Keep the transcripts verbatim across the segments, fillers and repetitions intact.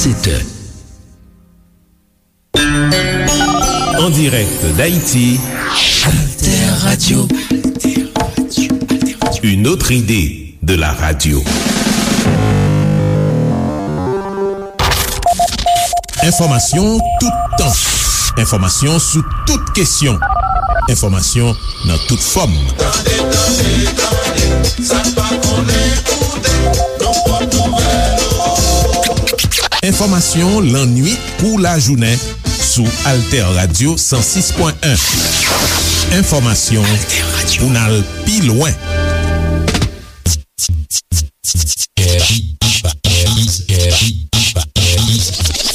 sept heures. En direct d'Haïti, Alter Radio. Une autre idée de la radio. Enfòmasyon toutan. Enfòmasyon sou tout kesyon. Enfòmasyon nan tout fòm. Tande, tande, tande, sa n pa konnen koute, nou pot nouvèl. Enfòmasyon lannwit kou lajounen sou Alter Radio san sis pwen en. Enfòmasyon pou n al pi lwen.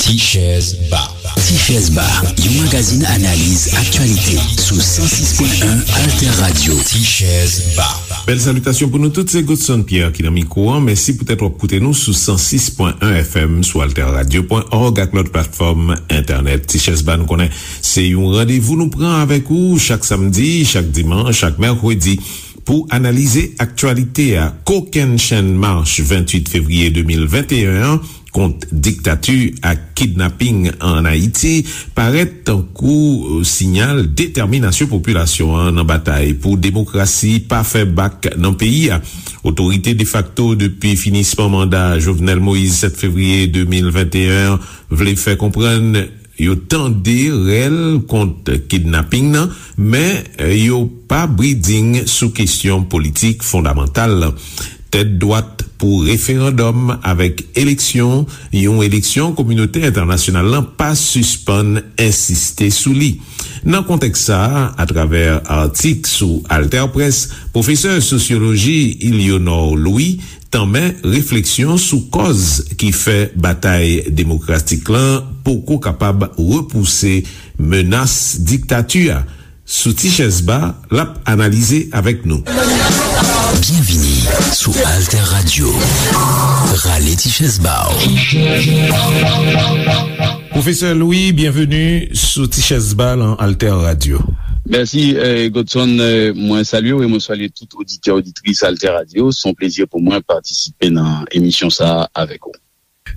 Tichèz Ba. Tichèz Ba, yon magazin analiz aktyalite sou san sis pwen en Alter Radio. Tichèz Ba. Bèl salitasyon pou nou tout, se Godson Pierre ki nan mikwo an. Mèsi poutèt w ap koute nou sou san sis pwen en F M sou alter radio pwen org ak lòt platfòm entènèt. Tichèz Ba, nou konnen se yon randevou nou pran avèk ou chak samdi, chak dimanch, chak mèkredi pou analize aktyalite a. Kokennchenn mach venntuit fevriye de mil venteyen an kont diktati ak kidnaping ann Ayiti parèt tankou siyal detèminasyon popilasyon an nan batay pou demokrasi pa fè bak nan peyi a. Otorite defakto depi finisman manda Jovenel Moïse sèt fevriye de mil venteyen an vle fè konprann yo tande rèl kont kidnaping nan, men yo pa briding sou kesyon politik fondamantal. Tèt dwat pou referandòm avèk eleksyon, yon eleksyon kominote entènasyonal lan pa sispann ensiste sou li. Nan kontèks sa a, atravè atik sou AlterPresse, pwofesè sosyoloji Ilionor Louis tanmen refleksyon sou kòz ki fè batay demokratik lan poko kapab repouse menas diktati a. Sou Tichèz Ba, l ap analize avèk nou. Byenvini sou Alter Radio. Rale tichèz ba w. Pwofesè Louis, byenveni sou Tichèz Ba lan Alter Radio. Mèsi, eh, Godson. Eh, mwen salye w e mwen salye tout oditè, oditris Alter Radio. Se yon plezi pou mwen patisipe nan emisyon sa a avèk ou.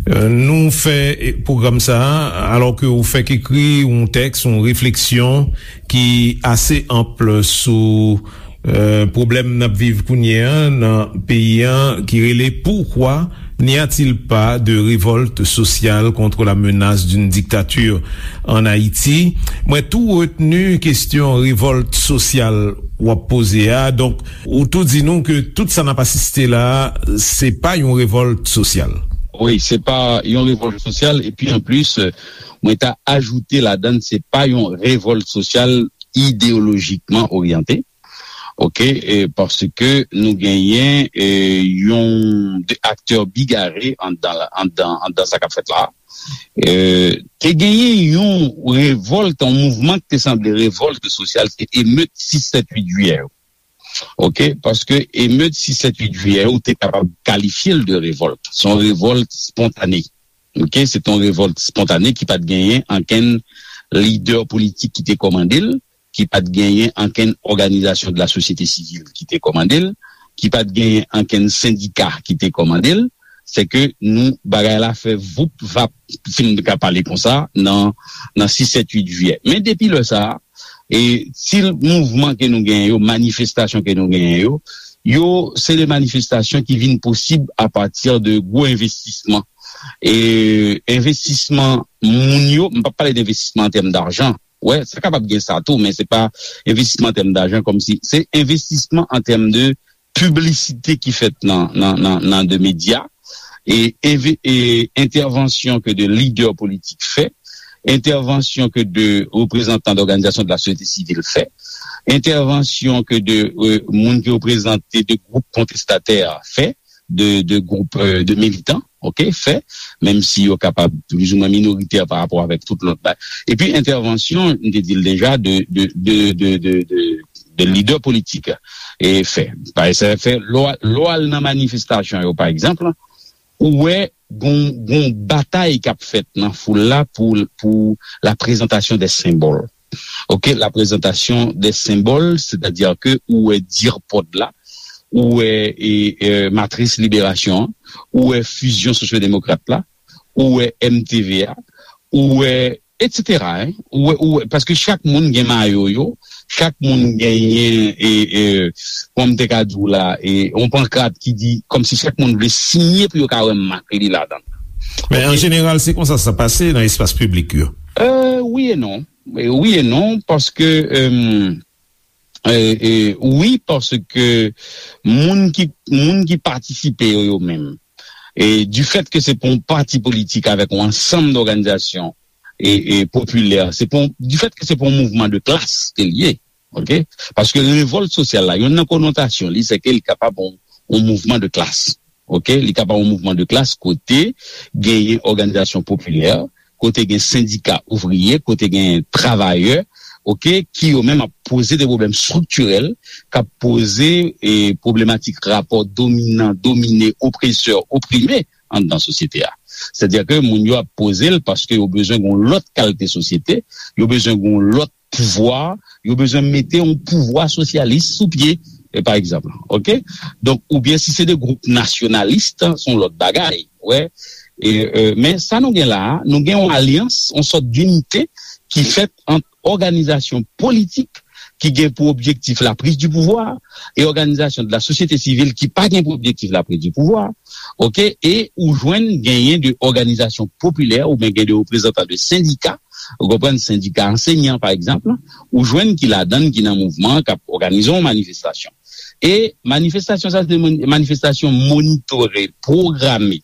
Eh, nou fè, eh, pwogram sa a, alò ke ou fèk ekri yon tèks, yon refleksyon ki ase anp sou, eh, pwoblèm n ap viv kounye a nan peyi a, ki rele Pourquoi n'y a-t-il pas de révolte sociale contre la menace d'une dictature en Haïti? Mwen tou retni kesyon revòlt sosyal w ap poze a. Donk, ou tou di nou ke tout sa n ap asiste la a, se pa yon revòlt sosyal. Wi, se pa yon revòlt sosyal, epi anplis, mwen ta ajoute ladann, se pa yon revòlt sosyal ideyolojikman oryante. Oke, e paske nou genyen, e, yon de aktè bigare anndan, anndan, anndan sa k ap fèt la. E, te genyen yon revòlt, yon mouvman ki te sanble revòlt sosyal, se emet sis sèt uit jiyè yo. Oke, paske emet sis sèt uit jiyè yo, ou te kapab kalifye l de revòlt. Se yon revòlt spontane. Oke, se te yon revòlt spontane ki pa t genyen ankenn lidè politik ki te kòmande l, ki pa t genyen ankenn òganizasyon de la sosyete sivil ki te kòmande l, ki pa t genyen ankenn sendika ki te kòmande l. Se ke nou, bagay la fè voup vap, si m ka pale konsa, nan, nan sis sèt uit jiyè. Men depi lè sa a, e ti mouvman ke nou genyen yo, manifestasyon ke nou genyen yo, yo, se de manifestasyon ki vin posib apati de gwo envestisman. E envestisman moun yo, m p ap pale de envestisman an tèm dajan. Wè, sa kapab gen sa tou, men se pa envestisman an tèm dajan, kòmsi se envestisman an tèm de piblisite ki fèt nan, nan, nan, nan de medya, e, e, e entèvansyon ke de lidè politik fè, entèvansyon ke de reprezantan dòganizasyon de la sosyete sivil fè, entèvansyon ke de, e, moun ki reprezante de gwoup kontestatè fè, de, de gwoup, e, de militan, oke, fè, menm si yo kapab plizoumwen minoritè pa rapò avèk tout lòt bagay. Epi entèvansyon, m te di l deja, de, de, de, de, de, de, de lidè politik, e, fè. Pa egzanp, fè, lè w al, lè w al nan manifestasyon yo, pa egzanp, ou wè gon, gon batay k ap fèt nan foul la pou, pou la prezantasyon de senbòl. Oke, la prezantasyon de senbòl, sètadi ke ou wè dirpòd la, ou wè, e, e, matris liberasyon an, ou wè fizyon sosyodemokrat la, ou wè M T V a, ou wè, et cetera, en. Ou wè, ou wè, paske chak moun gen mayo yo, chak moun genyen, e, e, kòm m te ka di w la, e, yon pankrat ki di, kòmsi chak moun vle siyen pou yo ka wè mak li ladan l. Men an jeneral, se konsa sa pase nan espas piblik yo. Euh, wi e non. E wi e non, paske, euh, e, e, wi, paske moun ki, moun ki patisipe yo, yo menm, e du fait que se pa yon pati politik avèk yon ansanm dòganizasyon e, e popilè, se pa yon, du fait que se pa yon mouvman de klas ke l ye, ok? Paske revòlt sosyal la, youn nan konotasyon li, se ke li kapab yon, yon mouvman de klas, ok? Li kapab yon mouvman de klas kote genyen òganizasyon popilè, kote gen sendika ouvriye, kote gen travayè, ok, ki yo menm ap poze de pwoblèm estriktirèl, k ap poze e pwoblematik rapò dominan, domine, opresè, oprime anndan sosyete a. Sètadi ke moun yo ap poze l paske yo bezwen gen yon lòt kalite sosyete, yo bezwen gen yon lòt pouvwa, yo bezwen mete yon pouvwa sosyalis sou pye, e pa egzanp, ok? Donk, oubyen si se de gwoup nasyonalis, se yon lòt bagay, wè. E, e, men sa nou gen la a, nou gen yon alyans, yon sòt dinite ki fèt ant òganizasyon politik ki gen pou objektif la prise du pouvoir e òganizasyon de la sosyete sivil ki pa gen pou objektif la prise du pouvoir, ok? E ou jwenn genyen de òganizasyon popilè oubyen gen de reprezantan de sendika, ou konprann, sendika ansenyan, pa egzanp, ou jwenn ki ladan l, ki nan mouvman, k ap òganize yon manifestasyon. E manifestasyon sa, se manifestasyon monitore, pwograme.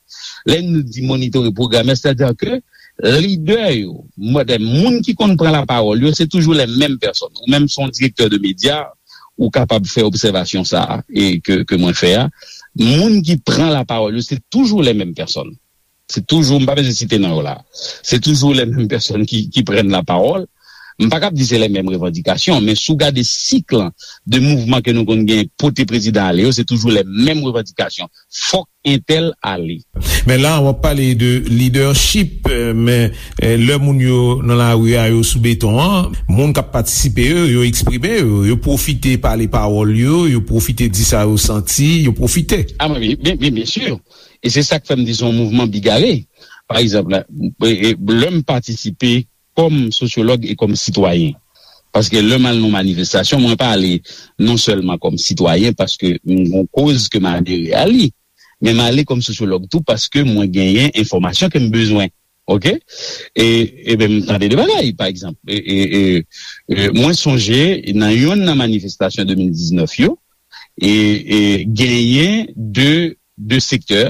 Lè nou di monitore, pwograme, sètadi ke lidè yo, moun ki konn pran lapawòl yo, se toujou les mêmes personnes. Ou menm, se yon direktè de medya, ou kapab fè obsèvasyon sa a, e ke, ke mwen fè a. Moun ki pran lapawòl yo, se toujou les mêmes personnes. Se toujou, m pa bezwen site non yo la. Se toujou les mêmes personnes ki, ki prennent la parole. M pa kab di se les mêmes revendications, men si w gade sik lan de mouvman ke nou konn gen pote prezidan ale yo, se toujou les mêmes revendications. Fòk entèl ale. Men la, w ap pale de leadership, men lè moun yo nan lari a, yo sou beton an, moun k ap patisipe yo, yo eksprime yo, yo pwofite pale pawòl yo, yo pwofite di sa yo santi, yo pwofite. Ah, men, men, men, byen si. E se sa k fè m di se yon mouvman bigare. Pa egzanp, lè m patisipe kòm sosyològ e kòm sitwayen. Paske lè m al nan manifestasyon, mwen pa ale non sèlman kòm sitwayen, paske m gen yon koz ke m adere a li, men m ale kòm sosyològ tou paske mwen genyen enfòmasyon ke m bezwen. Ok? E, e ben, m tande de bagay, pa egzanp. E, e, e, e, mwen sonje nan youn nan manifestasyon de mil diznèf yo, e, e genyen de, de sektè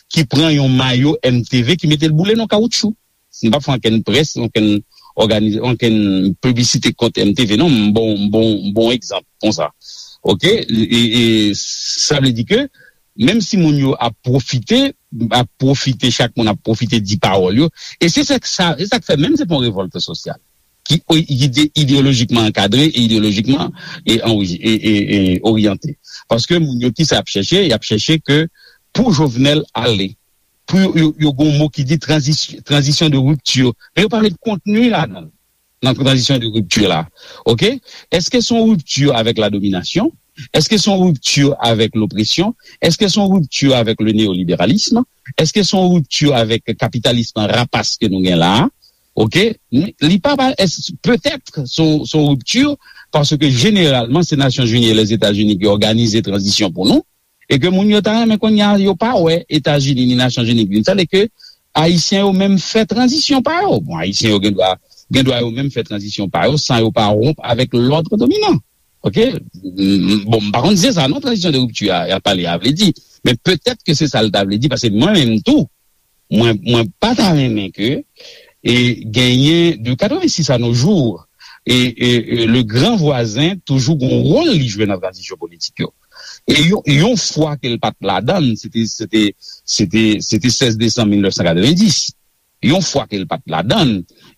ki pran yon mayo M T V ki mete l boule nan kawoutchou. M pa fè ankenn près, ankenn òganiz-, ankenn piblisite kont M T V, non, m bon, m bon, m bon egzanp konsa. Ok? E, e sa vle di ke menm si moun yo ap pwofite, ap pwofite, chak moun ap pwofite di pawòl yo. E se sa, sa, se sa k fè menm se pa yon revòlt sosyal ki, ki ide-, ideyolojikman ankadre e ideyolojikman e, e, e, e oryante. Paske moun yo ki sa ap chèche, y ap chèche ke pou Jovenel ale, pou yo, yo, yo gen yon mo ki di tranzis-, tranzisyon de ripti. Men yo pa met kontni ladan l, nan tranzisyon de ripti la. Ok? Èske se yon ripti avèk la dominasyon? Èske se yon ripti avèk lopresyon? Èske se yon ripti avèk le neoliberalisme? Èske se yon ripti avèk kapitalism rapas ke nou gen la a? Ok? Li pa, pa, petèt se yon, se yon ripti, paske jeneralman se Nasyonzini e Lèzetazini ki òganize tranzisyon pou nou, e ke moun yo ta renmen kounye a yo pa wè Etazini ni Nasyonzini ki vin. Sa vle ke Ayisyen yo menm fè tranzisyon pa yo. Bon, Ayisyen yo gen dwa, gen dwa yo menm fè tranzisyon pa yo san yo pa wonp avèk lòd dominan. Ok? M, m, bon, m pa konn si se sa non, tranzisyon de ripti a, y ap pale a vle di. Men petèt ke se sa l ta vle di, paske mwen menm tou, mwen, mwen pa ta renmen ke e genyen de katrevensis à nos jours, e, e, e le gran vwazen toujou gon wòl li jwe nan tranzisyon politik yo. E yon, yon fwa ke l pa t ladan l, se te, se te, se te, se te sèz desanm mil nèf san katrevendiz. Yon fwa ke l pa t ladan l,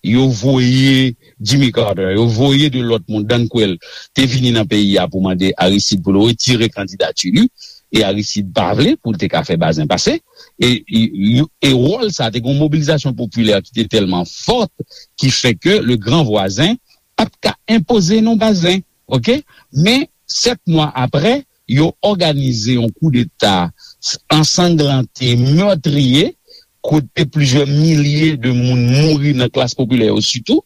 yo voye Jimmy Carter, yo voye de lòt moun, Dan Quayle, te vini nan peyi a pou mande Aristide pou l retire kandidati li, e Aristide pa vle pou l te ka fè Bazin pase. E, e, e wòl sa, te gen yon mobilizasyon popilè ki te tèlman fòt, ki fè ke le gran vwazen pa t ka enpoze non Bazin. Ok? Men, sèt mwa apre, yo òganize yon koudeta ansanglante, mètriye, kote plizyè milye de moun mouri nan klas popilè yo sitou,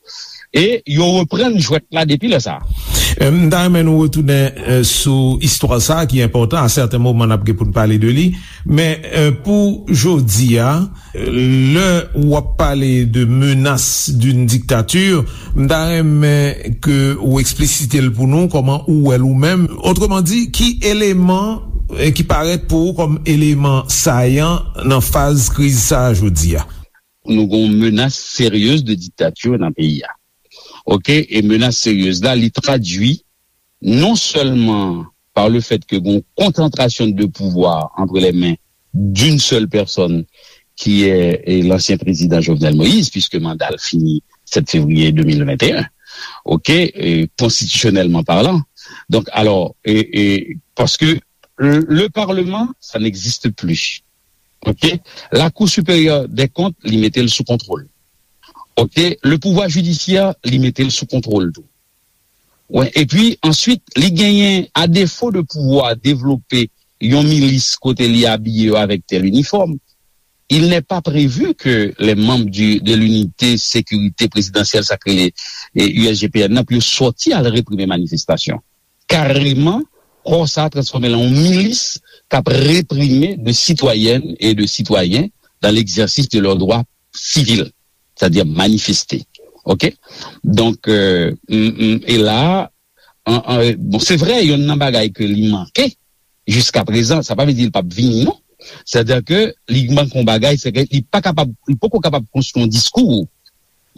e yo reprann jwèt la depi lè sa a. M ta renmen nou retounen sou istwa sa a ki enpòtan. A sèten moman, n ap gen pou n pale de li. Men pou jodi a, lè w ap pale de menace d'une dictature, m ta renmen ke ou eksplisite l pou nou, kòman ou wè l ou menm. Otreman di, ki eleman ki parèt pou ou kòm eleman sayan nan faz kriz sa a jodi a? Nou gen yon menace sérieuse de dictature nan peyi a. Oke, e menace sérieuse la, li tradui non seulement par le fait que gen yon concentration de pouvoir entre les mains d'une seule personne qui est, est l'ancien président Jovenel Moïse, puisque mandat l fini sept février deux mille vingt et un. Oke, e, constitutionnellement parlant. Donc, alors, e, e, parce que le, le Parlement, ça n'existe plus. Oke, la Cour supérieure des comptes, li mete l sou kontwòl. Oke, le pouvoir judiciaire, li mete l sou kontwòl tou. Wi, epi answit, li genyen, à défaut de pouvoir développer yon milis kote li abiye yo avèk tel uniforme, il n'est pas prévu que les membres du, de l'unité sécurité présidentielle, sa k rele, e, U S G P N nan, pou yo sòti al reprime manifestasyon. Kareman, kò sa a transfòme l an yon milis k ap reprime de citoyennes et de citoyens dans l'exercice de leurs droits civils, c'est-à-dire manifester. Oke? Donk, e, m, m, e la, an, an, bon, se vre, yonn nan bagay ke li manke jiska prezan, sa pa vle di l p ap vini, non. Sètadi ke li manke yon bagay, se ke li pa kapab, li poko kapab konstwi yon diskou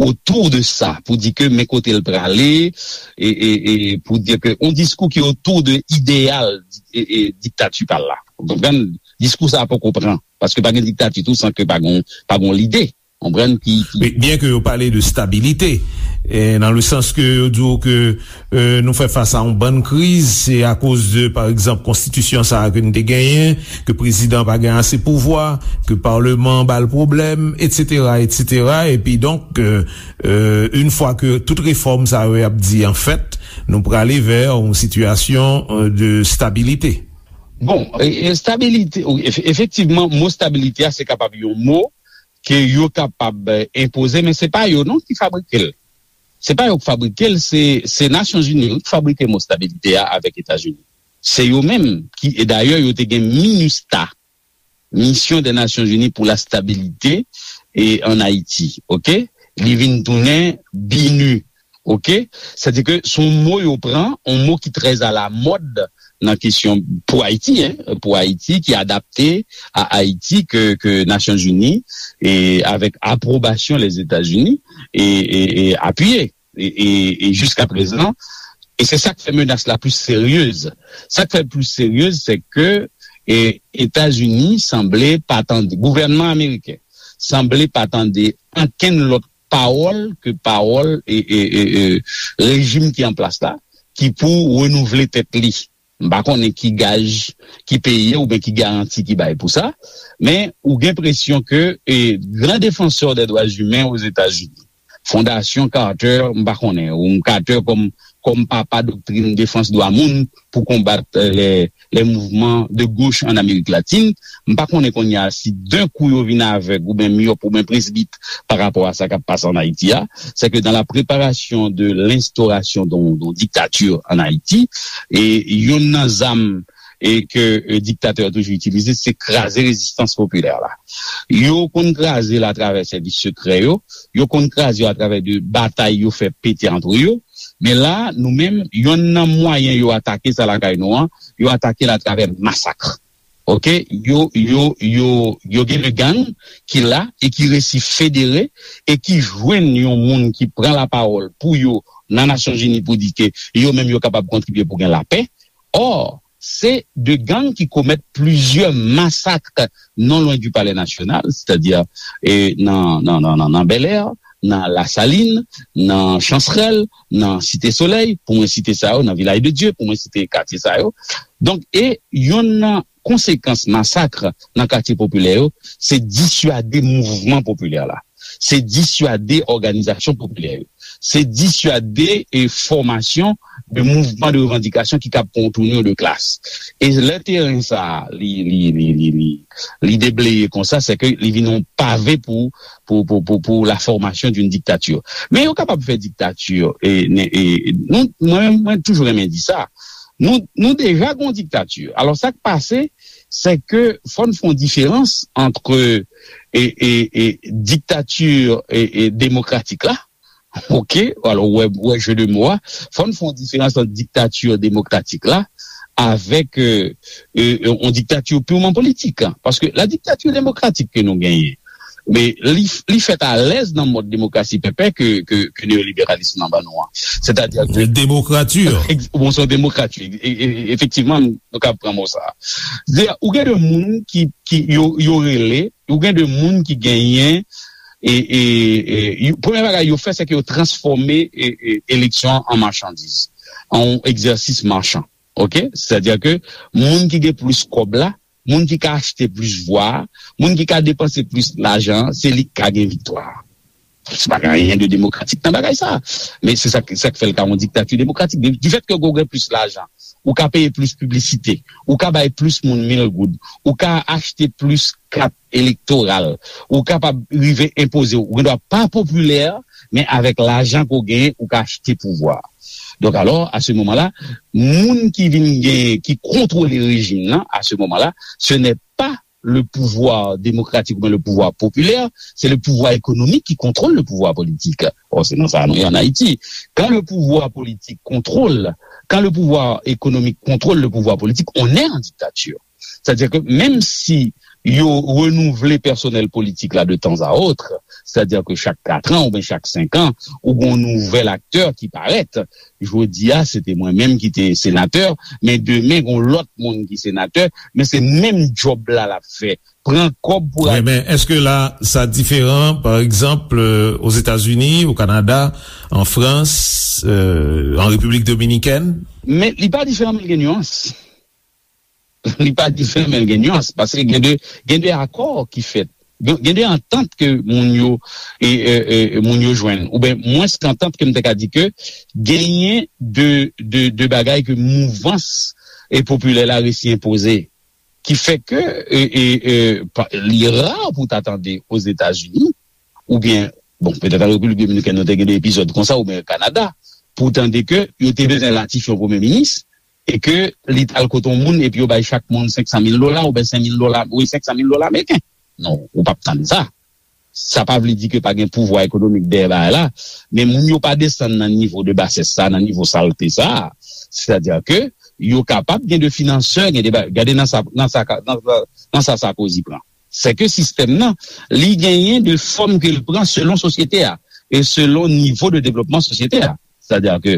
otou de sa, pou di ke men kote l prale, e, e, e pou di ke yon diskou ki otou de ideyal, e, e, diktati pa l la. Ou konprann? Diskou sa a poko pran, paske pa gen diktati tou san ke pa gon, pa gon lide. Konprann ki, ki Wi, byen ke yo pale de stabilite, e, nan le sans ke yo di w ke, e, nou fè fas a yon bann kriz, se akoz de, pa egzanp, konstitisyon sa a ke n te genyen, ke prezidan pa gen ase pouvwa, ke palman ba l pwoblèm, etsetera, etsetera. Epi donk, e, e, yon fwa ke tout refòm sa yo y ap di, an fèt, nou prale vè yon sitiyasyon, e, de stabilite. Bon, e, e, stabilite, wi, efe-, efektivman, mo stabilite a, se kapab yon mo ke yo kapab, e, enpoze, men se pa yo non ki fabrike l. Se pa yo ki fabrike l, se, se Nasyonzini wi ki fabrike mo stabilite a avèk Etazini. Se yo menm ki, e dayè, yo te gen minustah, Mission des Nations Unies pour la Stabilité, e, en Haïti, oke? Li vin tounen BINUH, oke? Sètadi ke se yon mo yo pran, yon mo ki trè alamòd nan kesyon pou Ayiti, en, pou Ayiti, ki adapte a Ayiti, ke, ke Nasyonzini, e avèk apwobasyon Lèzetazini, e, e, e apiye. E, e, e jiska prezan, e se sa k fè menas la plis seryez. Sa k fè l plis seryez, se ke, e, Etazini sanble pa tande, gouvènman ameriken sanble pa tande ankenn lòt pawòl ke pawòl, e, e, e, e, rejim ki an plas la, ki pou renouvle tèt li. M pa konnen ki gaj, ki peye oubyen ki garanti ki bay pou sa, men ou gen enpresyon ke, e, gran defansè dè dwa imen Ozetazini, Fondasyon Carter, m pa konnen, ou Carter kòm, kòm papa doktrin defans dwa moun pou konbat, e, lè, lè mouvman de goch an Amerik Latin, m pa konnen kounye a si d'un coup yo vin avèg oubyen myòp oubyen presbit pa rapò a sa k ap pase an Ayiti a, c'est que dans la préparation de l'instauration d'un, d'un dictature en Haïti, e yonn nan zam, e ke, e, diktatè yo toujou itilize, se kraze rezistans popilè la. Yo konn kraze l atravè sèvis sekrè yo, yo konn kraze yo atravè de batay yo fè pete antre yo, men la, nou menm, yonn nan mwayen yo atake sa lakay nou an, yo atake l atravè masak. Oke, yo, yo, yo, yo gen de gang ki la e ki resi federe e ki jwenn yon moun ki pran lapawòl pou yo nan Nasyonzini pou di ke yo menm yo kapab kontribye pou gen lapè. Ò, se de gang ki komèt plizyè masak non lwen di Palè Nasyonal, sètadi, e, nan, nan, nan, nan, nan Bèlè, nan Lasalin, nan Chansrèl, nan Site Solèy, pou mwen site sa yo, nan Vilaj de Dye, pou mwen site katye sa yo. Donk, e yonn nan konsekans masak nan katye popilè yo, se diswade mouvman popilè la. Se diswade òganizasyon popilè yo. se disyade e fòmasyon de mouvman de revandikasyon ki kab pran yon tounur de klas. E lè teren sa a, li, li, li, li, li, li debleye konsa, se ke li vin yon pave pou, pou, pou, pou, pou la formation d'une dictature. Men yo kapab fè diktati, e, ne- e, nou, mwen, mwen toujou renmen di sa. Nou, nou deja gon diktati. Alò, sa k pase, se ke fò n fè yon diferans ant e, e, e, diktati e, e, demokratik la, ok, alò, wè, wè jeu de mots a, fò n fè yon diferans ant diktati demokratik la avèk e, e, yon diktati purman politik. Paske la dictature démocratique ke nou genyen, men li, li fèt alèz nan mòd demokrasi pèpè ke, ke, ke neyoliberalis lan ban nou an. Sètadi ke Demokrati. Ex- bon, se yon demokrati, e- e- e- efektivman, nou ka pran mo sa. Sètadi, ou gen de moun ki, ki yo, yo rele, ou gen de moun ki genyen, e, e, e, yo- premye bagay yo fè, se ke yo transfòme e, e, eleksyon an machandiz, an yon egzèsis machan. Ok? Sètadi ke moun ki gen plis kòb la, moun ki ka achte plis vwa, moun ki ka depanse plis lajan, se li ki ka gen viktwa. Se pa gen anyen de demokratik nan bagay sa. Men se sa, sa k fè l ka yon diktati demokratik. Du fait que ou gen plis lajan, ou ka peye plis piblisite, ou ka bay plis moun mil goud, ou ka achte plis kat elektoral, ou kapab rive enpoze, ou gen dwa pa popilè, men avèk lajan ke w genyen, ou ka achte pouvwa. Donk alò, à ce moment-là, moun ki vin gen, ki kontwole rejim nan, à ce moment-là, ce n'est pas le pouvoir démocratique ou bien le pouvoir populaire, c'est le pouvoir économique qui contrôle le pouvoir politique. Or, c'est dans ça nous en Haïti. Quand le pouvoir politique contrôle, quand le pouvoir économique contrôle le pouvoir politique, on est en dictature. Sètadi ke menm si yo renouvle pèsonèl politik la de tan a ot, sètadi ke chak kat an oubyen chak senk an, ou gen yon nouvèl aktè ki parèt. Jodi a, se te mwen menm ki te senatè, men demen, gen yon lòt moun ki senatè, men se menm djòb la l ap fè. Pran kòb pou Wi, men èske la, sa diferan, pa egzanp, euh, Ozetazini, o Kanada, an Frans, euh, an Repiblik Dominikèn? Men li pa diferan, men l gen nyans. Li pa diferan, men l gen nyans, paske gen de, gen de akò ki fèt. Gen gen de antant ke moun yo, e, e, e, moun yo jwenn, oubyen mwens ke antant ke m te ka di ke genyen de, de, de bagay ke mouvans e popilè la resi enpoze, ki fè ke e, e, e, pa- li ra pou ta tande Ozetazini, oubyen, bon, petèt an Repiblik Dominikèn, nou te gen de epizòd konsa, oubyen Kanada, pou tande ke yo te bezwen ratifye yon premye minis, e ke li t al kote yon moun epi yo bay chak moun senk san mil dola oubyen senk mil dola, wi, senk san mil dola ameriken. Non, ou p ap tann sa. Sa pa vle di ke pa gen pouvwa ekonomik dèyè bagay la, men moun yo pa desann nan nivo de basès sa, nan nivo salte sa. Sètadi ke yo kapab gen de finansè, gen de ba- gade nan sa, nan sa, nan sa, nan sa Sarkozy pran. Se ke sistèm nan, li genyen de fòm ke l pran selon sosyete a e selon nivo de devlopman sosyete a. Sètadi ke,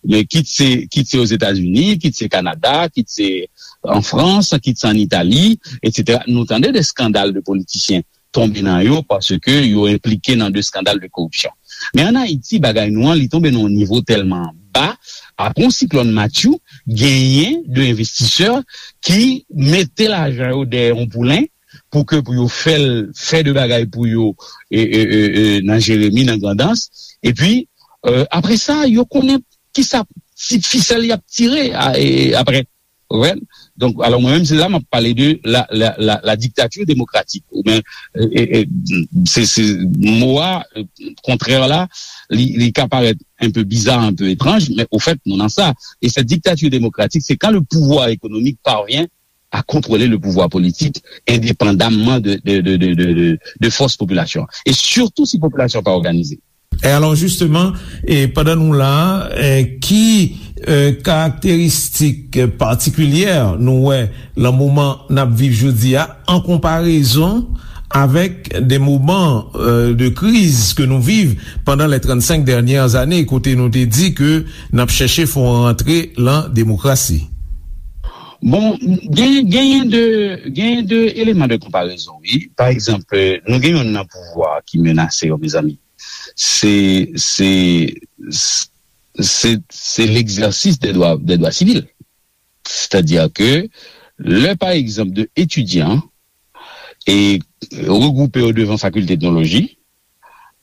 men kit se, kit se Ozetazini, kit se Kanada, kit se an Frans, kit se an Itali, etsetera. Nou tande de eskandal de politisyen tonbe nan yo paske yo enplike nan de eskandal de koripsyon. Men an Ayiti, bagay nou an, li tonbe nan yon nivo tèlman ba, apre yon siklòn Matthew, genyen de envestisè ki mete lajan yo dèyè yon poulen pou ke pou yo fè l fè de bagay pou yo e, e, e, e, nan Jeremi, nan Grandans. Epi, e, apre sa, yo konnen kisa ti fisèl y ap tire a- e, apre. Ou konprann? Donk, alò, mwen menm, se la m ap pale de la, la, la, la dictature démocratique. Ou byen, e, e, e, se, se mo a, e, kontrè la, li, li ka parèt un peu bizarre, un peu étrange, mais au fait, nou nan sa. Et cette dictature démocratique, c'est quand le pouvoir économique parvient à contrôler le pouvoir politique indépendamment de, de, de, de, de, de, de force population. Et surtout si population pa òganize. E alò, jisteman, e pandan nou la, e, ki e, karakteristik patikilyè nou wè nan moman n ap viv jodi a, an konparezon avèk de moman e, de kriz ke nou viv pandan les trente-cinq dernières années, kote nou te di ke n ap chèche fè yon rantre lan demokrasi? Bon, gen, genyen de, genyen de eleman de konparezon, wi. Pa egzanp, nou gen youn nan pouvwa ki menase yo, mezanmi. Se, se, se, se l'exercice des droits, des droits civils. Sètadi ke lè, pa egzanp, de etidyan e regwoupe yo devan fakilte etnoloji,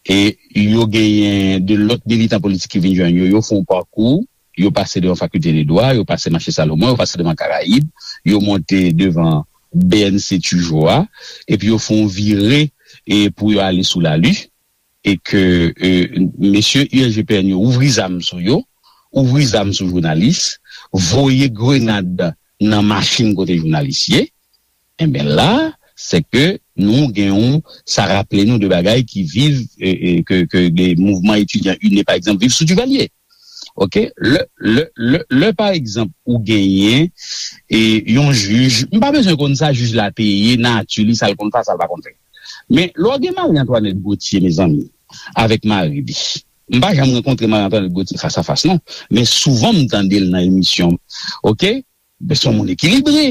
E yo genyen de lòt militan politik ki vin jwenn yo, yo fè yon pakou, yo pase devan Fakilte de Dwa, yo pase Mache Salomon, yo pase devan Karayib, yo monte devan B N C Tijo a, epi yo fè yon vire e pou yo ale sou Lali, e ke e, mesye U S G P N yo ouvri zam sou yo, ouvri zam sou jounalis, voye grenad nan machin kote jounalis ye, enben la, se ke nou gen yon, sa raple nou de bagay ki viv, e, e, ke, ke de mouvman etidyan UNE, pa egzanp, viv sou Duvalier. Oke? Lè, lè, lè, lè pa egzanp, ou genyen e yon jij, m pa bezwen konn sa jij la te ye, nati li, sa l konn fè, sa l pa konn fè. Men, lè w gen Marie Antoinette Gauthier, mezanmi, avèk mari li, m pa janm rankontre Marie Antoinette Gauthier fas a fas, non. Men souvan, m tande l nan emisyon. Oke? Men se yon moun ekilibre.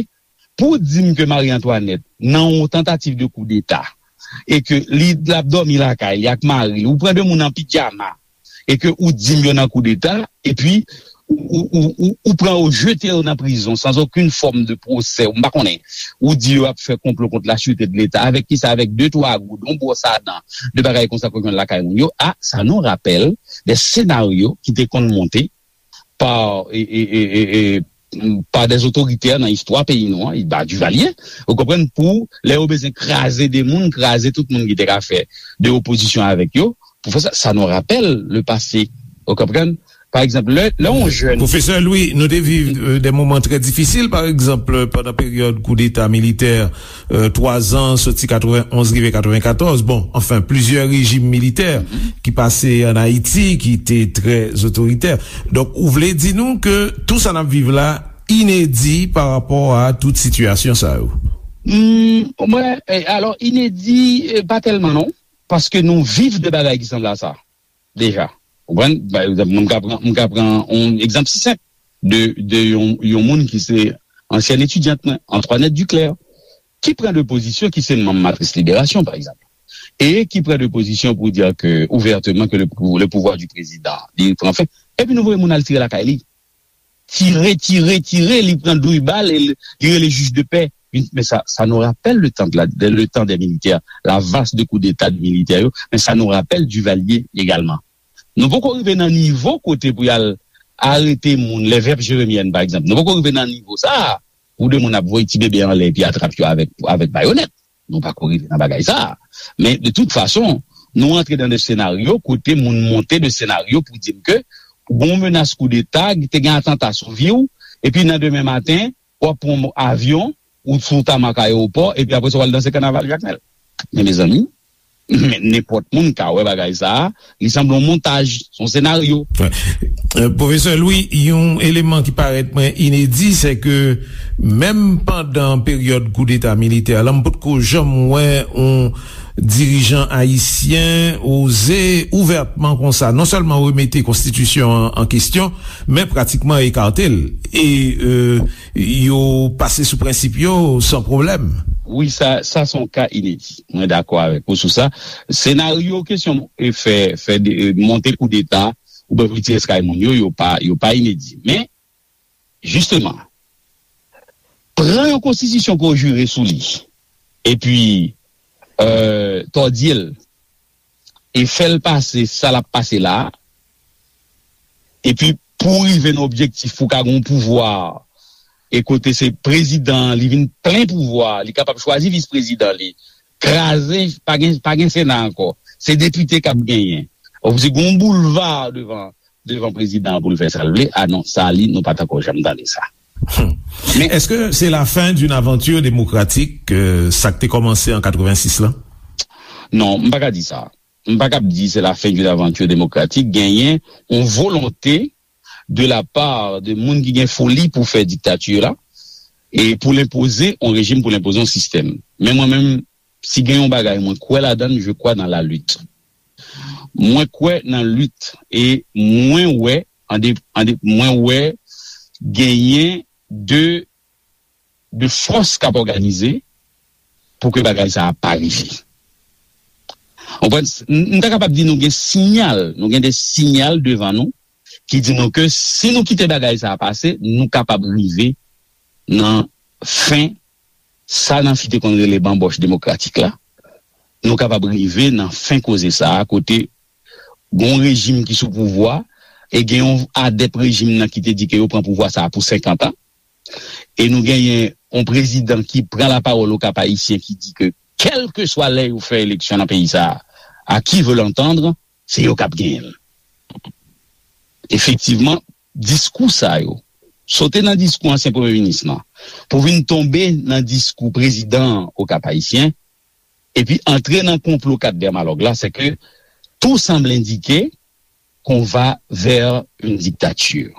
Pou w di m ke Marie Antoinette, nan yon tantativ de koudeta, e ke li l ap dòmi lakay li ak mari li, ou pran de moun an pijama, e ke ou di m yo nan koudeta, epi ou, ou, ou, ou pran yo, jete yo nan prizon, sans aucune forme de procès, m pa konnen. Ou di yo ap fè konplo kont la sûreté de l'État. Avèk kisa? Avèk de twa goud, yon bwòs a dan, de bagay konsa ke w jwenn lakay moun yo. A, ça nous rappelle des scénarios ki te konn monte pa, e, e, e, e, e, pa des otoritè nan istwa peyi nou an, ba Duvalier, ou konprann, pou lè yo bezwen kraze de moun, kraze tout moun ki te ka fè de opozisyon avèk yo, pou fè sa, ça nous rappelle le passé, ou konprann? Pa egzanp, lè, lè yon jèn Pwofesè Louis, nou te viv euh, de moman trè difisil, pa egzanp, pandan peryòd koudeta militè, euh, twa zan, soti katrevenn onz rive katrevenkatòz. Bon, anfen, plizyè rejim militè ki pase ann Ayiti, ki te trè otoritè. Donk, ou vle di nou ke tou sa n ap viv la inedi pa rapò a tout sitiyasyon sa yo? Hmm, mwen, eh, alò, inedi, eh, pa tèlman non, paske nou viv de bagay ki sanble a sa deja. Ou konprann? Pa egzanp, mwen, m ka pran, m ka pran yon egzanp si senp de, de yon, yon moun ki se ansyèn etidyant mwen, Antoinette Duclair, ki pran de pozisyon, ki se manm Matris Liberasyon, pa egzanp, e ki pran de pozisyon pou di ke, ouvèteman, ke le, pou- le pouvoir du président, li pran fen, epi nou voye moun al tire lakay li. Tire, tire, tire, li pran douz bal e li, li rele jij de pè. Men sa, ça nous rappelle le temps de la, de, le temps des militaires, la vague de coup d'État de militaires, yo, men ça nous rappelle Duvalier également. Nou poko rive nan nivo kote pou y al arete moun, les veuves jérémiennes, pa egzanp. Nou poko rive nan nivo sa a, pou de moun ap voye ti bebe anlè epi atrap yo avèk, avèk bayonèt. Nou pako rive nan bagay sa a. Men, de tout fason, nou antre dan de senaryo kote moun monte de senaryo pou di m ke gon menas koudeta, te gen atanta sou vi w, epi nan demen maten, w ap pran avyon, ou sou tamak ayewopò, epi apre sa, w al danse kanaval Jakmèl. Men, mezanmi, men nenpòt moun ka wè bagay sa a, li sanble yon montaj, se yon senaryo. Wè. Euh, Pwofesè Louis, yon eleman ki parèt mwen inedi, se ke menm pandan peryòd koudeta militè la, m potko janm wè yon dirijan ayisyen oze ouvètman konsa, non sèlman remete konstitisyon an an kesyon, men pratikman ekate l. E euh, yo pase sou prensip yo san pwoblèm. Wi, sa, sa se yon ka inedi. Mwen dakò avèk ou sou sa. Senaryo kesyon e fè, fè de, e, monte koudeta oubyen pou tire kay moun yo, yo pa, yo pa inedi. Men, jisteman, pran yon konstitisyon ke w jire sou li, epi euh, tòdye l, e fè l pase sa l ap pase la a, epi pou w rive nan objektif pou w ka gen yon pouvwa, e kote se prezidan an, li vin plen pouvwa, li kapab chwazi vis prezidan li, kraze, pa gen, pa gen Sena ankò, se depite k ap genyen. Ou di gen yon boulva devan, devan prezidan an pou l fè sa l vle, a non, sa li, nou pa t ankò janm tande sa. Men Èske se la fen d'une aventure démocratique, euh, sa k te kòmanse an katrevensis la? Non, m pa ka di sa. M pa kab di se la fen d'une aventure démocratique. Genyen yon volonte de la part de moun ki gen foli pou fè diktati la, e pou l enpoze yon rejim, pou l enpoze yon sistèm. Men mwen menm, si gen yon bagay mwen kwè ladan l, je crois dans la lutte. Mwen kwè nan lit e mwen wè, an de, an de, mwen wè genyen de, de fòs k ap òganize pou ke bagay sa a pa rive. Ou konprann? M, m ta kapab di nou gen siyal, nou gen de siyal devan nou ki di nou ke si nou kite bagay sa a pase, nou kapab rive nan fen sa Nancy te konn rele banbòch demokratik la, nou kapab rive nan fen koze sa a, kote gen yon rejim ki sou pouvwa, e gen yon adèp rejim nan ki te di ke yo pran pouvwa sa a pou senkant an, e nou genyen yon prezidan ki pran lapawòl Okap Ayisyen ki di ke kèlkeswa lè yo fè eleksyon nan peyi sa a, à qui veut l'entendre, se yo k ap genyen l. Efektivman, diskou sa yo, sote nan diskou ansyen premye minis lan, pou vin tonbe nan diskou prezidan Okap Ayisyen, epi antre nan konplo kat dèmalòg la, se ke tout semble indiquer qu'on va vers une dictature.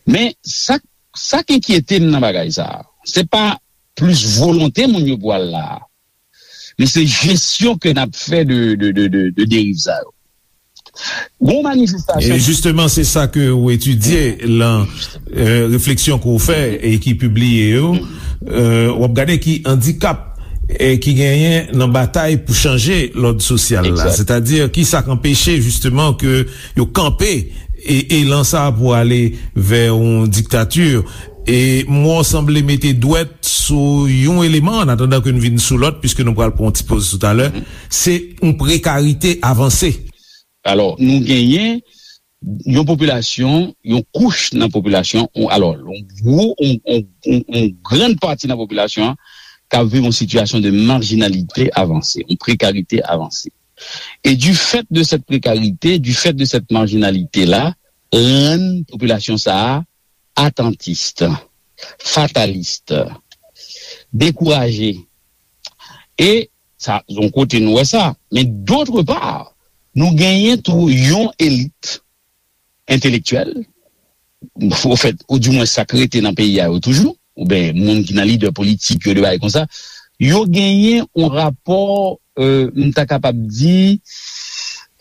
Men sa, sa k enkyete m nan bagay sa a, se pa plis volonte moun yo pou al la a, men se jesyon ke n ap fè de, de, de, de, de deriv sa yo. Gon manifestasyon. E jisteman, se sa ke ou etidye lan, euh, refleksyon ke ou fè e ki pibliye yo. Euh, w ap gade ki andikap e ki genyen nan batay pou chanje lòd sosyal la. Exact. Sètadi, ki sa k anpeche jisteman ke yo kanpe e elan sa pou ale vè yon diktati. E mwen sanble mete dwèt sou yon eleman, an atandan ke n vin sou lòt, piske nou pral pran yon ti poz toutalè, se yon prekarite avanse. Alò, nou genyen yon popilasyon, yon kouch nan popilasyon, yon, alò, yon gwo, yon, yon, yon, yon grann pati nan popilasyon an k ap viv yon sitiyasyon de marjinalite avanse, yon prekarite avanse. E du fait de cette précarité, du fait de cette marginalité-là, rann popilasyon sa a atantis, fatalis, dekouraje. E sa, yon kote nou wè sa. Men d'autre part, nou genyen tou yon elit entelektyèl, ofèt, ou dimwen sa k rete nan peyi a yo toujou, oubyen moun ki nan lidè politik yo, de bagay konsa, yo genyen yon rapò, euh, m ta kapab di,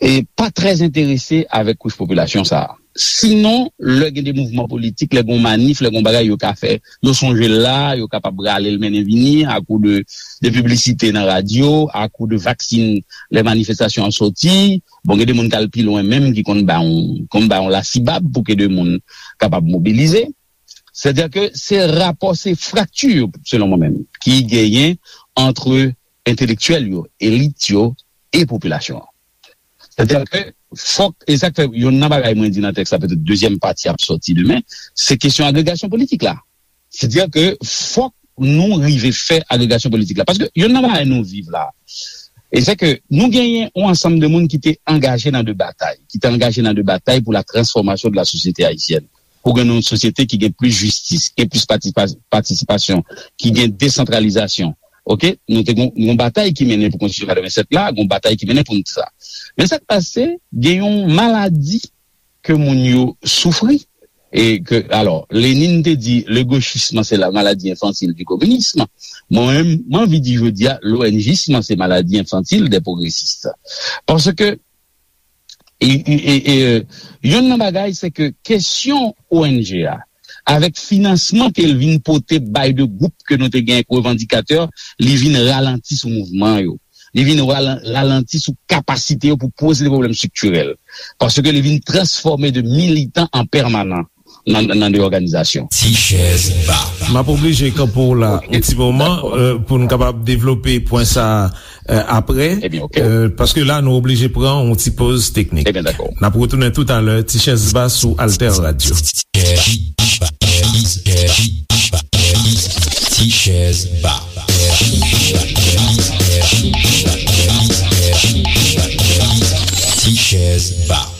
e pa trè enterese avèk kouch popilasyon sa a. Sinon, lè gen de mouvman politik, lè gen manif, lè gen bagay yo ka fè, yo sonje l la, yo kapab rale l mennen vini, akou de, de piblisite nan radyo, akou de vaksin, lè manifestasyon an soti. Bon, gen de moun k al pi lwen menm, ki konn ba yon, konn ba yon lasibab pou ke de moun kapab mobilize. Sètadi ke se rapò, se frakti, selon mwen menm, ki genyen ant entelektyèl yo, elit yo e popilasyon an. Sètadi ke fòk, e sa k fè youn nan bagay mwen di nan tèks la, petèt dezyèm pati ap sòti demen, se kesyon agregasyon politik la. Sètadi ke fòk nou rive fè agregasyon politik la. Paske youn nan bagay nou viv la, e se ke nou genyen yon ansanm de moun ki te angaje nan de batay, ki te angaje nan de batay pour la transformation de la société haïtienne. Pou gen yon sosyete ki gen plis jistis, ki gen plis patisipa-, patisipasyon, ki gen desantralizasyon. Oke? Nou te gon, gon batay ki mennen pou konstitisyon katrevennsèt la, gon batay ki mennen pou nou sa. Men sa k pase, gen yon maladi ke moun yo soufri. E ke, alò, Lenin te di, le gauchisme, c'est la maladie infantile du communisme. Mwen menm, mwen anvi di jodi a, l'O N J isme, c'est maladie infantile des progressistes. Paske, e, e, e, e, youn nan bagay, se ke kesyon O N G a, avèk finansman ke l vin pote bay de gwoup ke nou te gen ak revandikatè, li vin ralanti sou mouvman yo. Li vin ralan-, ralanti sou kapasite yo pou poze de pwoblèm estriktirèl. Paske li vin transfòme de militan an pèmanan nan, nan de òganizasyon. Ti chèz ba. M ap oblije kanpe w la yon ti moman, euh, pou n kapab devlope pwen sa a, euh, apre. Ebyen, oke. Euh, paske la, nou oblije pran yon ti poz teknik. Ebyen, dakò. N ap retounen toutalè, Ti chèz ba sou Alter Radio. Ti chèz ba. Ti chèz ba.